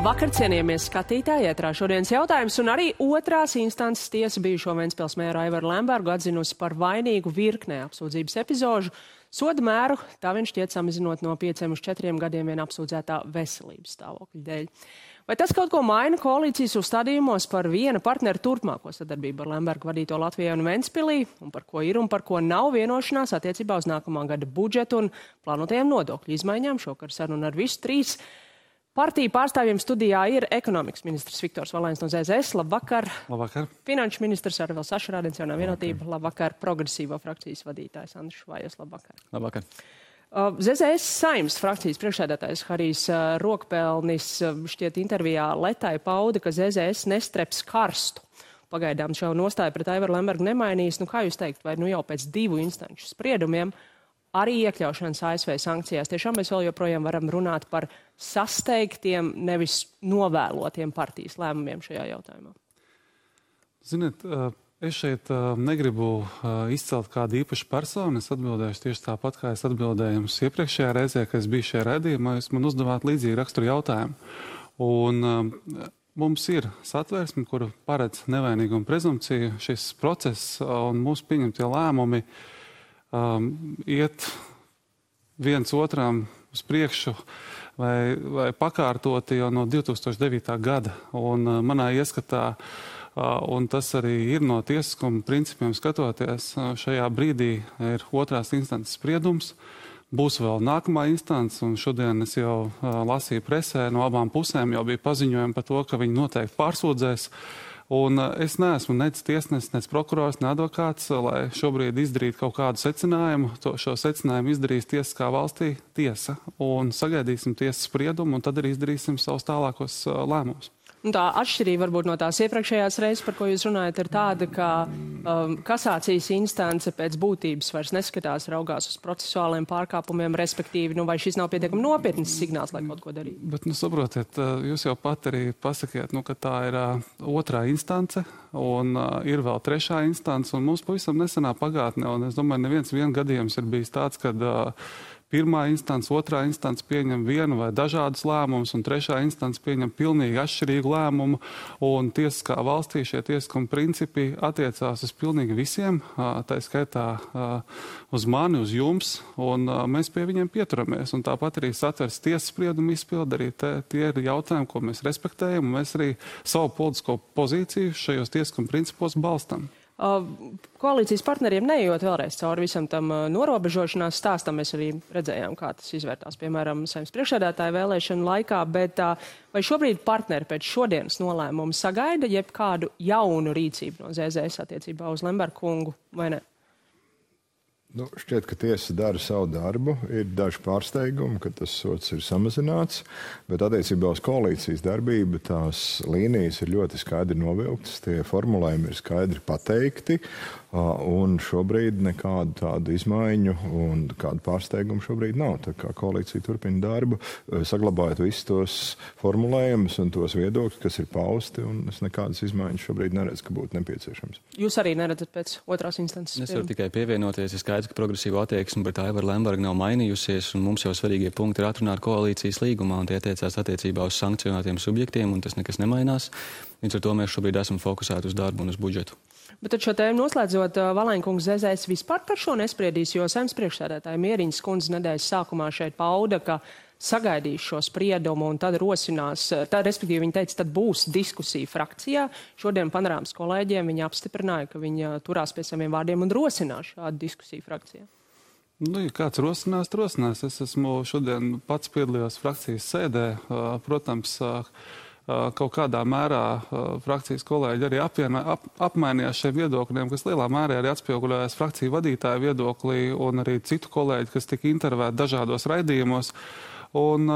Labvakar, cienījamies skatītāji, ētrā šodienas jautājums, un arī otrās instances tiesa bijušo Ventspils mēru Aivaru Lembergu atzinusi par vainīgu virknē apsūdzības epizožu. Soda mēru tā viņš šķiet samazinot no 5 uz 4 gadiem vien apsūdzētā veselības stāvokļa dēļ. Vai tas kaut ko maina koalīcijas uzstādījumos par viena partneru turpmāko sadarbību ar Lembergu vadīto Latvijai un Ventspilī, un par ko ir un par ko nav vienošanās attiecībā uz nākamā gada budžetu un plānotajām nodokļu izmaiņām? Šokar saruna ar visu trīs partiju pārstāvjiem studijā ir ekonomikas ministrs Viktors Valēns no ZZS. Labvakar. Labvakar. Finanšu ministrs Arvils Ašarādens, Jaunā vienotība. Labvakar. Progresīvo frakcijas vadītājs Andris Švājos. Labvakar. Labvakar. ZZS Saeimas frakcijas priekšsēdētājs Harijs Rokpelnis šķiet intervijā Letai pauda, ka ZZS nestreps karstu. Pagaidām šo nostāju pret Aivaru Lembergu nemainīs. Kā jūs teikt, vai jau pēc 2 instanču spriedumiem arī iekļaušanas ASV sankcijās tiešām mēs vēl joprojām varam runāt par sasteigtiem, nevis novēlotiem partijas lēmumiem šajā jautājumā? Ziniet, es šeit negribu izcelt kādu īpašu personu. Es atbildēšu tieši tāpat, kā es atbildēju jums iepriekšējā reizē, kad es biju šajā raidījumā. Jūs man uzdevāt līdzīgi raksturu jautājumu. Un mums ir satversme, kura paredz nevainīgumu prezumpciju. Šis process un mūsu pieņemtie lēmumi iet viens otram uz priekšu vai pakārtoti jau no 2009. gada. Un manā ieskatā, un tas arī ir no tiesiskuma principiem skatoties, šajā brīdī ir otrās instances spriedums. Būs vēl nākamā instance, un šodien es jau lasīju presē, no abām pusēm jau bija paziņojumi par to, ka viņi noteikti pārsūdzēs. Un es neesmu nec tiesnesis, nec prokurors, ne advokāts, lai šobrīd izdarītu kaut kādu secinājumu. Šo secinājumu izdarīs tiesiskā valstī tiesa. Un sagaidīsim tiesas spriedumu, un tad arī izdarīsim savus tālākos lēmumus. Tā atšķirība varbūt no tās iepriekšējās reizes, par ko jūs runājat, ir tāda, ka kasācijas instance pēc būtības vairs neskatās, raugās uz procesuāliem pārkāpumiem, respektīvi, vai šis nav pietiekami nopietns signāls, lai kaut ko darītu? Bet, saprotiet, jūs jau pat arī pasakiet, ka tā ir otrā instance, un ir vēl trešā instance, un mums pavisam nesenā pagātnē, un es domāju, neviens gadījums ir bijis tāds, kad pirmā instance, otrā instance pieņem vienu vai dažādus lēmumus, un trešā instance pieņem pilnīgi atšķirīgu lēmumu, un tiesiskā valstī šie tiesiskuma principi attiecās uz pilnīgi visiem, tā skaitā uz mani, uz jums, un mēs pie viņiem pieturamies, un tāpat arī satvers tiesas spriedumu izpildi, arī tie ir jautājumi, ko mēs respektējam, un mēs arī savu politisko pozīciju šajos tiesiskuma principos balstam. Koalīcijas partneriem neejot vēlreiz cauri visam tam norobežošanās stāstam, mēs arī redzējām, kā tas izvērtās, piemēram, Saeimas priekšsēdētāja vēlēšanu laikā, bet vai šobrīd partneri pēc šodienas nolēmumu sagaida jebkādu jaunu rīcību no ZZS attiecībā uz Lembergu kungu vai ne? Šķiet, ka tiesa dara savu darbu. Ir daži pārsteigumi, ka tas sods ir samazināts, bet attiecībā uz koalīcijas darbību tās līnijas ir ļoti skaidri novilktas, tie formulējumi ir skaidri pateikti, un šobrīd nekādu tādu izmaiņu un kādu pārsteigumu šobrīd nav. Tā kā koalīcija turpina darbu, saglabājot visus tos formulējumus un tos viedokļus, kas ir pausti, un es nekādas izmaiņas šobrīd neredzu, ka būtu nepieciešams. Jūs arī neredzat pēc otrās instances? Es varu tikai pievienoties, ir skaidrs, ka progresīva attieksme pret Aivaru Lembergu nav mainījusies, un mums jau svarīgie punkti ir atrunāti koalīcijas līgumā, un tie attiecās attiecībā uz sankcionētiem subjektiem, un tas nekas nemainās. Līdz ar to mēs šobrīd esam fokusēti uz darbu un uz budžetu. Bet tad šo tēmu noslēdzot, Valēnkungs ZZS vispār par šo nespriedīs, jo Saeimas priekšsēdētāja Mieriņas kundze nedēļas sākumā šeit pauda, ka sagaidīs šo spriedumu un tad rosinās, respektīvi viņa teica, tad būs diskusija frakcijā. Šodien Panorāmas kolēģiem viņa apstiprināja, ka viņa turās pie saviem vārdiem un rosinās šādu diskusiju frakcijā. Ja kāds rosinās. Es esmu šodien pats piedalījos frakcijas sēdē. Protams, kaut kādā mērā frakcijas kolēģi arī apmainījās šiem viedokļiem, kas lielā mērā arī atspoguļojās frakciju vadītāju viedoklī un arī citu kolēģi, kas tika intervēti dažādos raidījumos. Un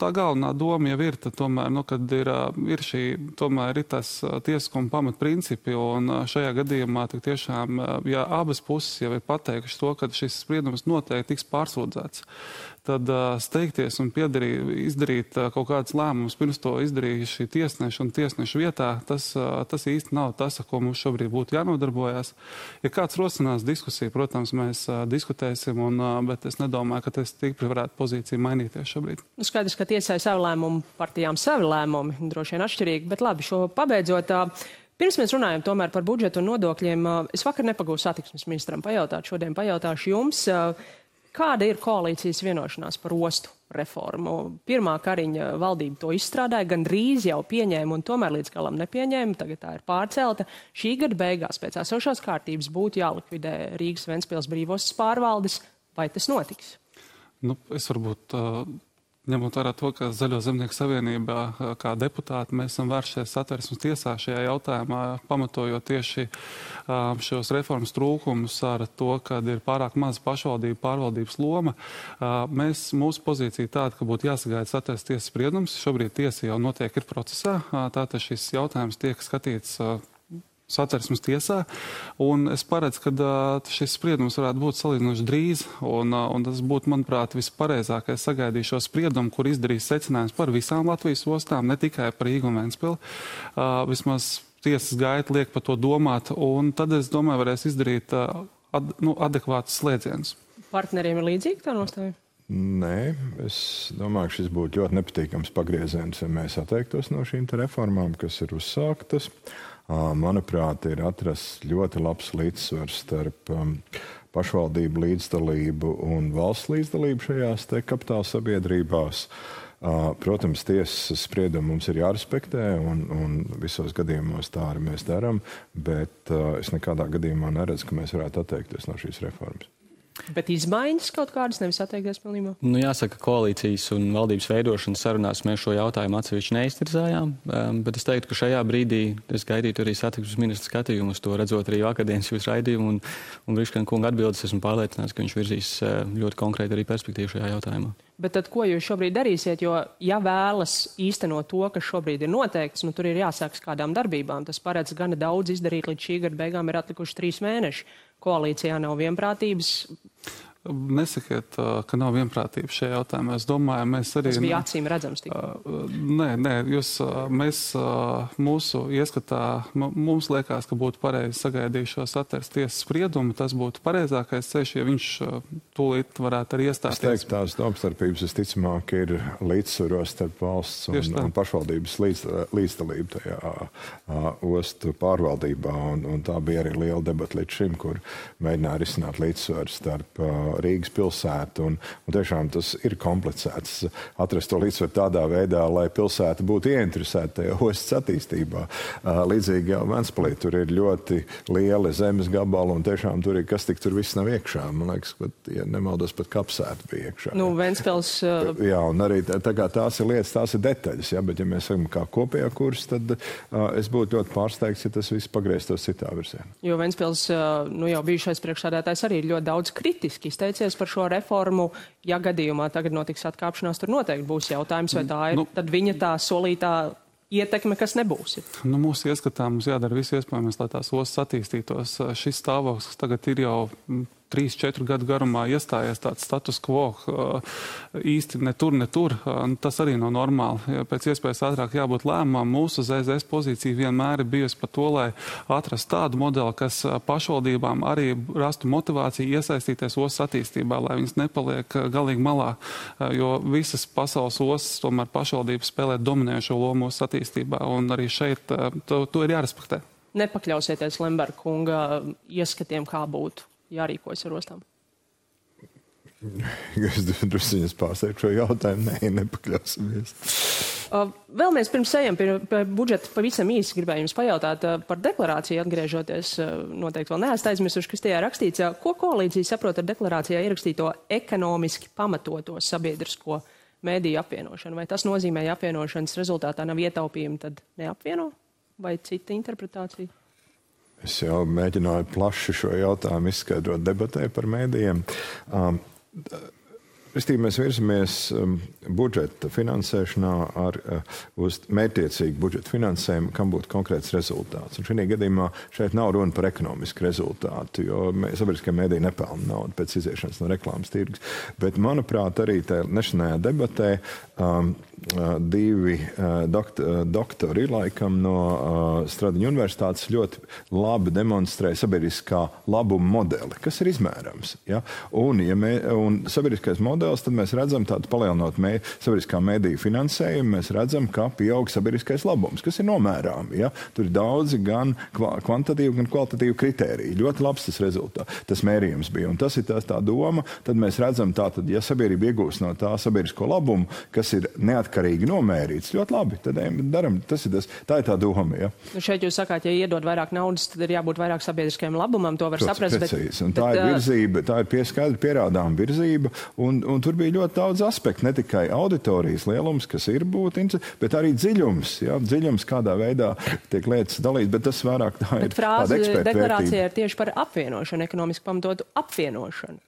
tā galvenā doma jau ir, tomēr, kad ir tas tiesiskuma pamatprincipi, un šajā gadījumā tiešām, ja abas puses jau ir pateikušas to, ka šis spriedums noteikti tiks pārsūdzēts, tad steigties un izdarīt kaut kādas lēmumus, pirms to izdarīja šī tiesneša un tiesneša vietā, tas īsti nav tas, ar ko mums šobrīd būtu jānodarbojas. Ja kāds rosinās diskusiju, protams, mēs diskutēsim, bet es nedomāju, ka tas stipri varētu pozīciju mainīties šobrīd. šobrīd. Skaidrs, ka tiesai savu lēmumu, partijām savi lēmumi, droši vien atšķirīgi, bet labi, šo pabeidzot. Pirms mēs runājam tomēr par budžetu un nodokļiem, es vakar nepagūstu satiksmes ministram pajautāt, šodien pajautāšu jums, kāda ir koalīcijas vienošanās par ostu reformu? Pirmā Kariņa valdība to izstrādāja, gan drīz jau pieņēma un tomēr līdz galam nepieņēma, tagad tā ir pārcelta. Šī gada beigās pēc esošās kārtības būtu jālikvidē Rīgas Ventspils brīvostas pārvaldes, vai tas notiks? Es varbūt, ņemot vērā to, ka Zaļo zemnieku savienībā kā deputāti mēs esam vēršies Satversmes tiesā šajā jautājumā, pamatojot tieši šos reformas trūkumus ar to, ka ir pārāk maz pašvaldību pārvaldības loma. Mūsu pozīcija tāda, ka būtu jāsagaida Satversmes tiesas spriedums. Šobrīd tiesa jau notiek ir procesā, tātad šis jautājums tiek skatīts Satversmes tiesā, un es paredzu, ka šis spriedums varētu būt salīdzinoši drīz, un tas būtu, manuprāt, vispareizākais sagaidīt šo spriedumu, kur izdarīs secinājums par visām Latvijas ostām, ne tikai par Rīgu un Ventspili. Vismaz tiesas gaita liek par to domāt, un tad, es domāju, varēs izdarīt adekvātus slēdzienus. Partneriem ir līdzīgi tā nostāja? Nē, es domāju, ka šis būtu ļoti nepatīkams pagrieziens, ja mēs atteiktos no šīm reformām, kas ir uzsāktas. Manuprāt, ir atrasts ļoti labs līdzsvars starp pašvaldību līdzdalību un valsts līdzdalību šajās te kapitāla sabiedrībās. Protams, tiesas spriedumu mums ir jārespektē, un visos gadījumos tā arī mēs darām, bet es nekādā gadījumā neredzu, ka mēs varētu atteikties no šīs reformas. Bet izmaiņas kaut kādas, nevis atteikties pilnībā? Jāsaka, koalīcijas un valdības veidošanas sarunās mēs šo jautājumu atsevišķi neiztirzājām, bet es teiktu, ka šajā brīdī es gaidītu arī satiksmes ministra skatījumu uz to, redzot arī vakardienas jūsu raidījumu un Briškana kunga atbildes, esmu pārliecināts, ka viņš virzīs ļoti konkrēti arī perspektīvu šajā jautājumā. Bet tad, ko jūs šobrīd darīsiet, jo ja vēlas īstenot to, kas šobrīd ir noteikts, tur ir jāsākas kādām darbībām. Tas paredz gana daudz izdarīt, līdz šī gada beigām ir atlikuši 3 mēneši. Koalīcijā nav vienprātības. Nesakiet, ka nav vienprātības šajā jautājumā. Es domāju, mēs arī... Tas bija acīm redzams tikai. Nē, mēs mūsu ieskatā, mums liekas, ka būtu pareizi sagaidīt šo Satversmes tiesas spriedumu. Tas būtu pareizākais ceļš, ja viņš tūlīt varētu arī iestāties. Es teiktu, tās domstarpības visticamāk ir līdzsvaros starp valsts un pašvaldības līdzdalību tajā ostu pārvaldībā. Un tā bija arī liela debata līdz šim, kur mēģināja risināt līdzsvaru starp Rīgas pilsētu, un tiešām tas ir komplicēts atrast to līdzsvaru tādā veidā, lai pilsēta būtu ieinteresēta tajā ostas attīstībā. Līdzīgi jau Ventspilī tur ir ļoti lieli zemes gabali, un tiešām tur ir, kas tik tur viss nav iekšā. Man liekas, pat, ja nemaldos, pat kapsēta bija iekšā. Ventspils... Jā, un arī tās ir lietas, tās ir detaļas, ja, bet ja mēs sakam kā kopējā kurs, tad es būtu ļoti pārsteigts, ja tas viss pagrieztos citā virzienā. Jo Ventspils, jau bijušais priekšsēdētājs arī ļoti daudz kritiski izteicies par šo reformu. Ja gadījumā tagad notiks atkāpšanās, tur noteikti būs jautājums, vai tā ir tad viņa tā solītā ietekme, kas nebūs. Mūsu ieskatā mums jādara viss iespējamais, lai tās ostas attīstītos. Šis stāvoklis tagad ir jau 3-4 gadu garumā iestājies tāds status quo, īsti ne tur. Tas arī nav normāli. Pēc iespējas ātrāk jābūt lēmumam. Mūsu ZZS pozīcija vienmēr ir bijusi par to, lai atrast tādu modeli, kas pašvaldībām arī rastu motivāciju iesaistīties ostas attīstībā, lai viņas nepaliek galīgi malā. Jo visas pasaules ostas tomēr pašvaldības spēlē dominējošo lomu ostas attīstībā, un arī šeit to ir jārespektē. Nepakļausieties Lemberga kunga ieskatiem, kā būtu jārīkojas ar ostām? Es drusciņas pārsteigtu šo jautājumu. Nepakļausimies. Vēl mēs pirms ejam pie budžeta pavisam īsi gribēju jums pajautāt par deklarāciju atgriežoties. Noteikti vēl neesat aizmirsuši, kas tajā rakstīts. Ko koalīcija saprot ar deklarācijā ierakstīto ekonomiski pamatoto sabiedrisko mēdīju apvienošanu? Vai tas nozīmē, ja apvienošanas rezultātā nav ietaupījumi, tad neapvieno? Vai cita interpretācija? Es jau mēģināju plaši šo jautājumu izskaidrot debatē par mēdījiem. Mēs virzamies budžeta finansēšanā uz mērķtiecīgu budžeta finansējumu, kam būtu konkrēts rezultāts. Un šajā gadījumā šeit nav runa par ekonomisku rezultātu, jo sabiedriskie mēdīji nepelna naudu pēc iziešanas no reklāmas tirgus. Bet, manuprāt, arī tajā nešanajā debatē divi doktori laikam no Stradiņu universitātes ļoti labi demonstrē sabiedriskā labuma modeli, kas ir izmērams. Ja? Un sabiedriskais modelis modelis, tad mēs redzam tādu palielinot sabiedriskā mediju finansējumu, mēs redzam, ka pieaug sabiedriskais labums, kas ir nomērāmi. Ja? Tur ir daudzi gan kvantitatīvi, gan kvalitatīvi kritēriji. Ļoti labs tas rezultāts, tas mērījums bija. Un tas ir tā doma, tad mēs redzam tātad, ja sabiedrība iegūst no tā sabiedrisko labumu, kas ir neatkarīgi nomērīts, ļoti labi, tad daram, tā ir tā doma. Ja? Nu šeit jūs sakāt, ja iedod vairāk naudas, tad ir jābūt vairāk sabiedriskajam labumam, to var saprast. Precīzi. Un tā ir virzība, tā ir skaidri pierādām virzība, un tur bija ļoti daudz aspektu, ne tikai auditorijas lielums, kas ir būtu, bet arī dziļums, ja? Dziļums, kādā veidā tiek lietas dalīts, bet tas vairāk tā ir tāda eksperta vērtība. Deklarācija ir tieši par apvienošanu, ekonomiski pamatotu apvienošanu.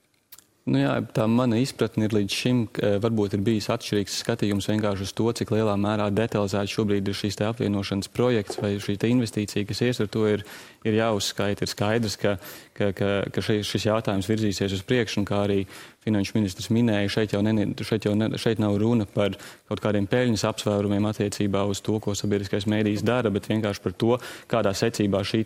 Nu jā, tā mana izpratne ir līdz šim, varbūt ir bijis atšķirīgs skatījums vienkārši uz to, cik lielā mērā detalizēti šobrīd ir šīs te apvienošanas projekts vai šī te investīcija, kas ies ar to ir jāuzskaita. Ir skaidrs, ka šis jautājums virzīsies uz priekšu, un kā arī finanšu ministrs minēja, šeit nav runa par kaut kādiem peļņas apsvērumiem attiecībā uz to, ko sabiedriskais mēdījis dara, bet vienkārši par to, kādā secībā šī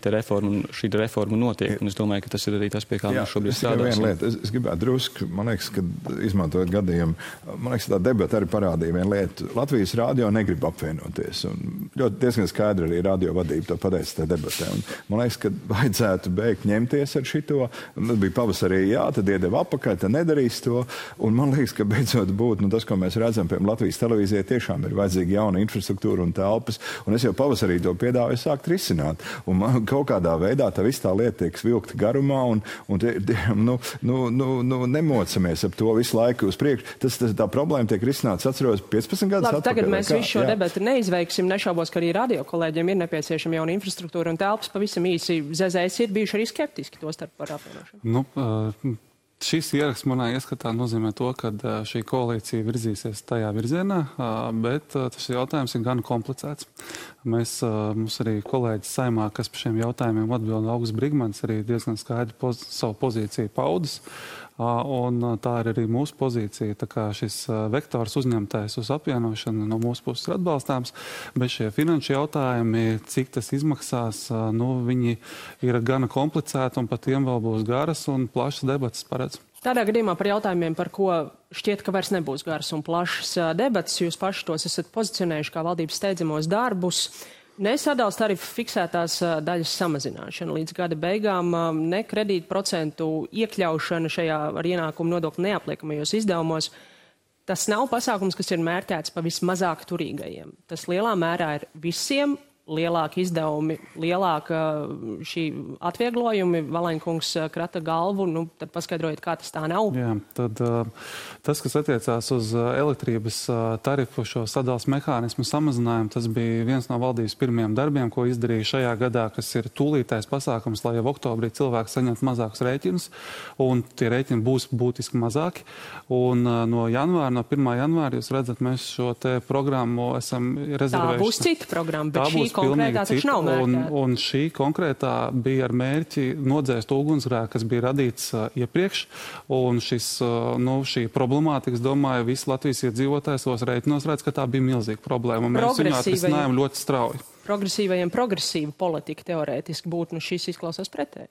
reforma notiek. Un es domāju, ka tas ir arī tas, pie kā mēs šobrīd strādāsim. Es gribētu drusku, man liekas, ka izmantojot gadījumu, man liekas, tā debata arī parādīja vienu lietu. Latvijas radio negrib apvienoties. Un ļoti diezgan skaidri arī radio vadība to pateica tajā debatē. Un man liekas, ka vajadzētu beigt ņemties ar šito. Tas bija pavasarī, jā, tad iedeva apakaļ, tad nedarīs to. Un man liekas, ka beidzot būtu, tas, ko mēs redzam, piemēram, Latvijas televīzijai tiešām ir vajadzīga jauna infrastruktūra un telpas. Un es jau pavasarī to piedāvāju sākt risināt. Un man kaut kādā veidā tā viss tā lieta tiek vilkta garumā un nemocamies ap to visu laiku uz priekšu. Tā problēma tiek risināts, atceros, 15 gadus atpakaļ. Tagad mēs visu šo debatu neizveiksim. Nešaubos, ka arī radio kolēģiem ir nepieciešama jauna infrastruktūra un telpas. Pavisam īsi ZZS ir bijuši arī skeptiski to starp par apvienošanu. Šis ieraksts manā ieskatā nozīmē to, ka šī koalīcija virzīsies tajā virzienā, bet tas jautājums ir gan komplicēts. Mums arī kolēģis Saimā, kas par šiem jautājumiem atbild, Augusts Brigmans, arī diezgan skaidri savu pozīciju paudis. Un tā ir arī mūsu pozīcija. Tā kā šis vektors uzņemtais uz apvienošanu no mūsu puses ir atbalstāms, bet šie finanšu jautājumi, cik tas izmaksās, viņi ir gana komplicēti un par tiem vēl būs garas un plašas debatas paredz. Tādā gadījumā par jautājumiem, par ko šķiet, ka vairs nebūs garas un plašas debatas, jūs paši tos esat pozicionējuši kā valdības steidzamos darbus. Nesadals tarifu fiksētās daļas samazināšana līdz gada beigām, ne kredītu procentu iekļaušana šajā ar ienākumu nodokli neapliekamajos izdevumos. Tas nav pasākums, kas ir mērķēts pa vismazāk turīgajiem. Tas lielā mērā ir visiem. Lielāki izdevumi, lielāka šī atvieglojumi, Valaņkungs krata galvu, tad paskaidrojiet, kā tas tā nav. Jā, tad tas, kas attiecās uz elektrības tarifu, šo sadals mehānismu samazinājumu, tas bija viens no valdības pirmajiem darbiem, ko izdarīja šajā gadā, kas ir tūlītais pasākums, lai jau oktobrī cilvēki saņemtu mazākus rēķinus, un tie rēķini būs būtiski mazāki. Un no 1. janvāra, jūs redzat, mēs šo te programmu esam rezervējuši. Tā būs cita programma, bet šī konkrētā taču nav mērķēta. Un šī konkrētā bija ar mērķi nodzēst ugunsgrēku, kas bija radīts iepriekš. Un šī problemātika, es domāju, visi Latvijas iedzīvotājs savos rēķinos redz, ka tā bija milzīga problēma. Mēs viņu atrisinājām ļoti strauji. Progresīvajiem progresīva politika teorētiski būtu, šis izklausās pretēji.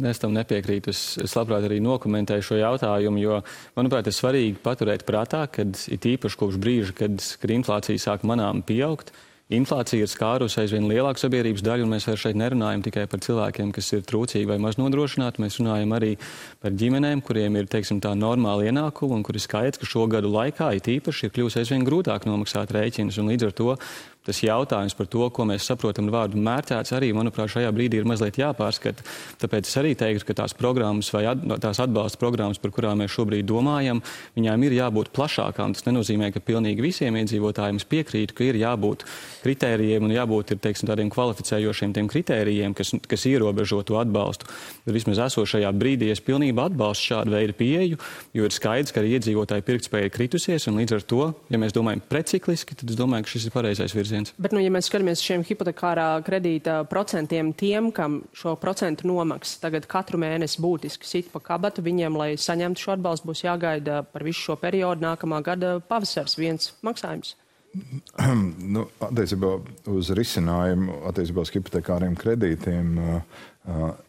Es tam nepiekrītu. Es labprāt arī nokomentēju šo jautājumu, jo, manuprāt, ir svarīgi paturēt prātā, kad it īpaši kopš brīža, kad inflācija sāk manām pieaugt, inflācija ir skārusi aizvien lielāku sabiedrības daļu, un mēs vairs šeit nerunājam tikai par cilvēkiem, kas ir trūcīgi vai maz nodrošināti. Mēs runājam arī par ģimenēm, kuriem ir, teiksim, tā normāla ienākuma, un kur ir skaidrs, ka šo gadu laikā it īpaši ir kļūst aizvien grūtāk nomaksāt rēķinus, un līdz ar to tas jautājums par to, ko mēs saprotam ar vārdu mērķēts, arī, manuprāt, šajā brīdī ir mazliet jāpārskata. Tāpēc es arī teiktu, ka tās programmas vai tās atbalsta programmas, par kurām mēs šobrīd domājam, viņām ir jābūt plašākām. Tas nenozīmē, ka pilnīgi visiem iedzīvotājiem es piekrītu, ka ir jābūt kritērijiem un jābūt teiksim, tādiem kvalificējošiem tiem kritērijiem, kas ierobežo to atbalstu. Bet vismaz esošajā brīdī es pilnībā atbalstu šādu veidu pieeju, jo ir skaidrs, ka arī iedzīvotāju pirktspēja ir kritusies, un līdz ar to, ja mēs domājam precikliski, tad es domāju, ka šis ir pareizais virziens. Bet, ja mēs skatāmies šiem hipotekārā kredīta procentiem, tiem, kam šo procentu nomaksas tagad katru mēnesi būtiski sit pa kabatu, viņiem, lai saņemtu šo atbalstu, būs jāgaida par visu šo periodu nākamā gada pavasars viens maksājums. Attiecībā uz risinājumu, attiecībā uz hipotekāriem kredītiem,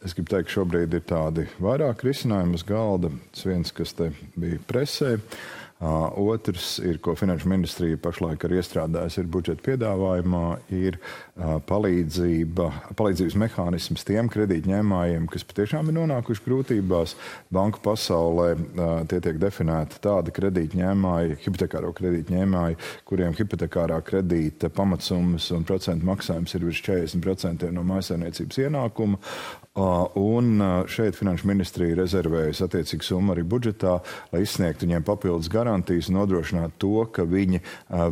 es gribu teikt, ka šobrīd ir tādi vairāk risinājumi uz galda. Tas viens, kas te bija presē. Otrs ir, ko Finanšu ministrija pašlaik ir iestrādājusi, ir budžeta piedāvājumā, ir palīdzības mehānisms tiem kredītņēmājiem, kas patiešām ir nonākuši grūtībās. Banku pasaulē tie tiek definēti tādi kredītņēmāji, hipotekāro kredītņēmāji, kuriem hipotekārā kredīta pamatsummas un procentu maksājums ir virs 40% no mājsaimniecības ienākuma. Un šeit Finanšu ministrija rezervējas attiecīgu summu arī budžetā, lai izsniegtu viņiem papildus garantijas un nodrošinātu to, ka viņi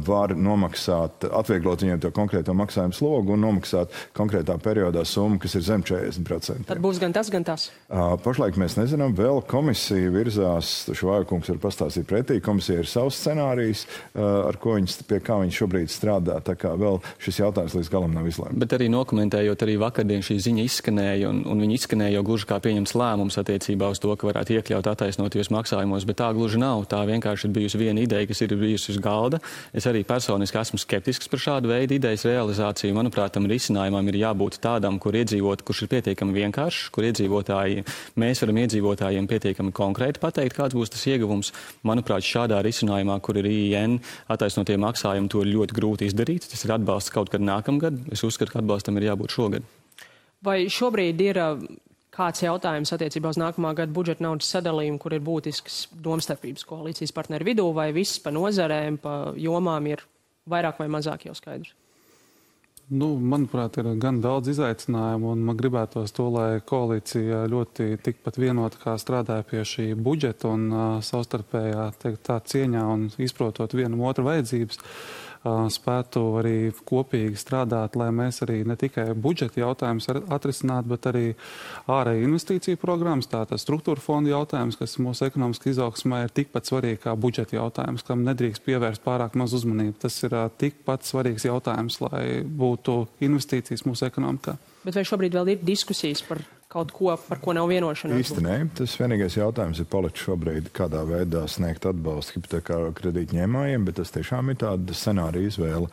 var nomaksāt, atvieglot viņiem to konkrēto maksājumu slogu un nomaksāt konkrētā periodā summu, kas ir zem 40%. Tad būs gan tas, gan tas? Pašlaik mēs nezinām, vēl komisija virzās, Švāja-kungs var pastāstīt pretī, komisija ir savs scenārijs, pie kā viņi šobrīd strādā, tā kā vēl šis jautājums līdz galam nav izlēmts. Bet arī nokomentējot, arī vakardien šī ziņa izskanēja, un viņi izskanēja jau gluži kā pieņems lēmums attiecībā uz to, ka varētu iekļaut attaisnotajos maksājumos, bet tā gluži nav. Tā vienkārši ir bijusi viena ideja, kas ir bijusi uz galda. Es arī personiski esmu skeptisks par šādu veidu idejas realizāciju. Manuprāt, tam risinājumam ir jābūt tādam, kurš ir pietiekami vienkāršs, kur mēs varam iedzīvotājiem pietiekami konkrēti pateikt, kāds būs tas ieguvums. Manuprāt, šādā risinājumā, kur ir IIN attaisnotie maksājumi, to ir ļoti grūti izdarīt. Tas ir atbalsts kaut kad nākamgad. Es uzskatu, ka atbalstam ir jābūt šogad. Vai šobrīd ir kāds jautājums attiecībā uz nākamā gada budžeta naudas sadalījumu, kur ir būtisks domstarpības koalīcijas partneru vidū, vai viss pa nozarēm, pa jomām ir vairāk vai mazāk jau skaidrs? Manuprāt, ir gan daudz izaicinājumu, un man gribētos to, lai koalīcija ļoti tikpat vienota kā strādāja pie šī budžeta un savstarpējā tā cieņā un izprotot vienam otru vajadzības, spētu arī kopīgi strādāt, lai mēs arī ne tikai budžeta jautājumus atrisinātu, bet arī ārēju investīciju programmas, tātad struktūra fonda jautājums, kas mūsu ekonomiski izaugsmē ir tikpat svarīgi kā budžeta jautājums, kam nedrīkst pievērst pārāk maz uzmanību. Tas ir tikpat svarīgs jautājums, lai būtu investīcijas mūsu ekonomikā. Bet vai šobrīd vēl ir diskusijas par kaut ko, par ko nav vienošanās? Īsti nē. Tas vienīgais jautājums ir palicis šobrīd, kādā veidā sniegt atbalstu hipotekāro kredītņēmājiem, bet tas tiešām ir tāda scenārija izvēle.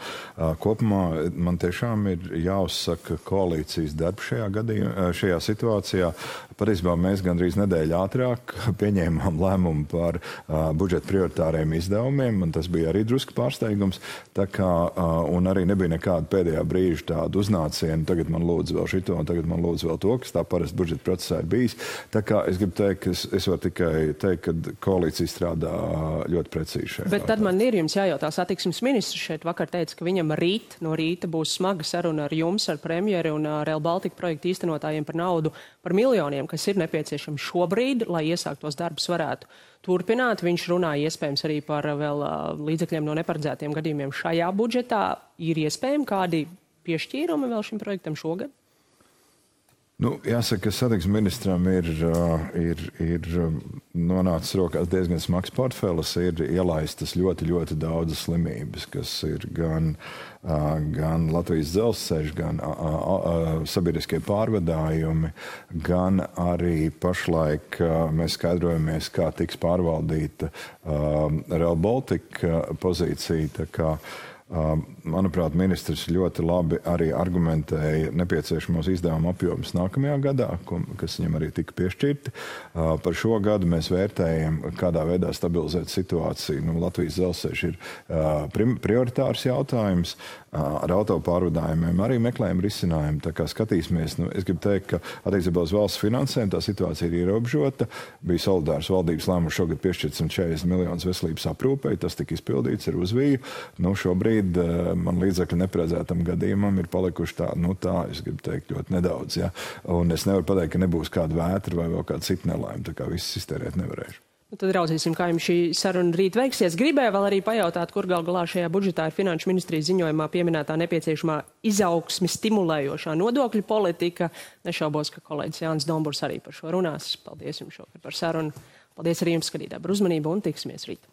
Kopumā man tiešām ir jāuzsaka koalīcijas darbs šajā situācijā. Patiesībā mēs gandrīz nedēļu ātrāk pieņēmām lēmumu par budžeta prioritāriem izdevumiem, un tas bija arī drusku pārsteigums. Un arī nebija nekāda pēdējā brīža tāda uznāciena, tagad man lūdzu vēl šito, un tagad man lūdzu vēl to, kas tā parasti budžeta procesā ir bijis. Tā kā es gribu teikt, ka es varu tikai teikt, ka koalīcija strādā ļoti precīzi šeit. Bet tad man ir jums jājautā, satiksmes ministrs šeit vakar teica, ka viņam no rīta būs smaga saruna ar jums, ar premjeri un Rail Baltica projektu īstenotājiem par naudu, par miljoniem, kas ir nepieciešami šobrīd, lai iesāktos darbus varētu turpināt. Viņš runāja iespējams arī par vēl līdzekļiem no neparedzētiem gadījumiem šajā budžetā. Ir iespējami kādi piešķīrumi vēl šim projektam šogad? Jāsaka, ka satiksmes ministram ir nonācis rokās diezgan smags portfelis, ir ielaistas ļoti, ļoti daudzas slimības, kas ir gan Latvijas dzelzceļš, gan sabiedriskie pārvadājumi, gan arī pašlaik mēs skaidrojamies, kā tiks pārvaldīta Rail Baltica pozīcija. Tā kā manuprāt, ministrs ļoti labi arī argumentēja nepieciešamos izdevumu apjomus nākamajā gadā, kas viņam arī tika piešķirti. Par šo gadu mēs vērtējam, kādā veidā stabilizēt situāciju. Latvijas dzelzceļš ir prioritārs jautājums. Ar autopārvadājumiem arī meklējam risinājumu. Tā kā skatīsimies, es gribu teikt, ka attiecībā uz valsts finansēm tā situācija ir ierobežota. Bija solidārs valdības lēmums šogad piešķirt 140 miljonus veselības aprūpei. Tas tika izpildīts ar uzviju. Šobrīd man līdzekļu neparedzētam gadījumam ir palikuši tā, es gribu teikt, ļoti nedaudz. Ja? Un es nevaru pateikt, ka nebūs kāda vētra vai vēl kāda cita nelaime, tā kā viss iztērēt nevarēšu. Tad raudzīsim, kā jums šī saruna rīt veiksies. Gribēju vēl arī pajautāt, kur gal galā šajā budžetā ir Finanšu ministrijas ziņojumā pieminētā nepieciešamā izaugsmi stimulējošā nodokļu politika. Nešaubos, ka kolēģis Jānis Domburs arī par šo runās. Paldies jums šovakar par sarunu. Paldies arī jums, skatītāji, par uzmanību un tiksimies rīt.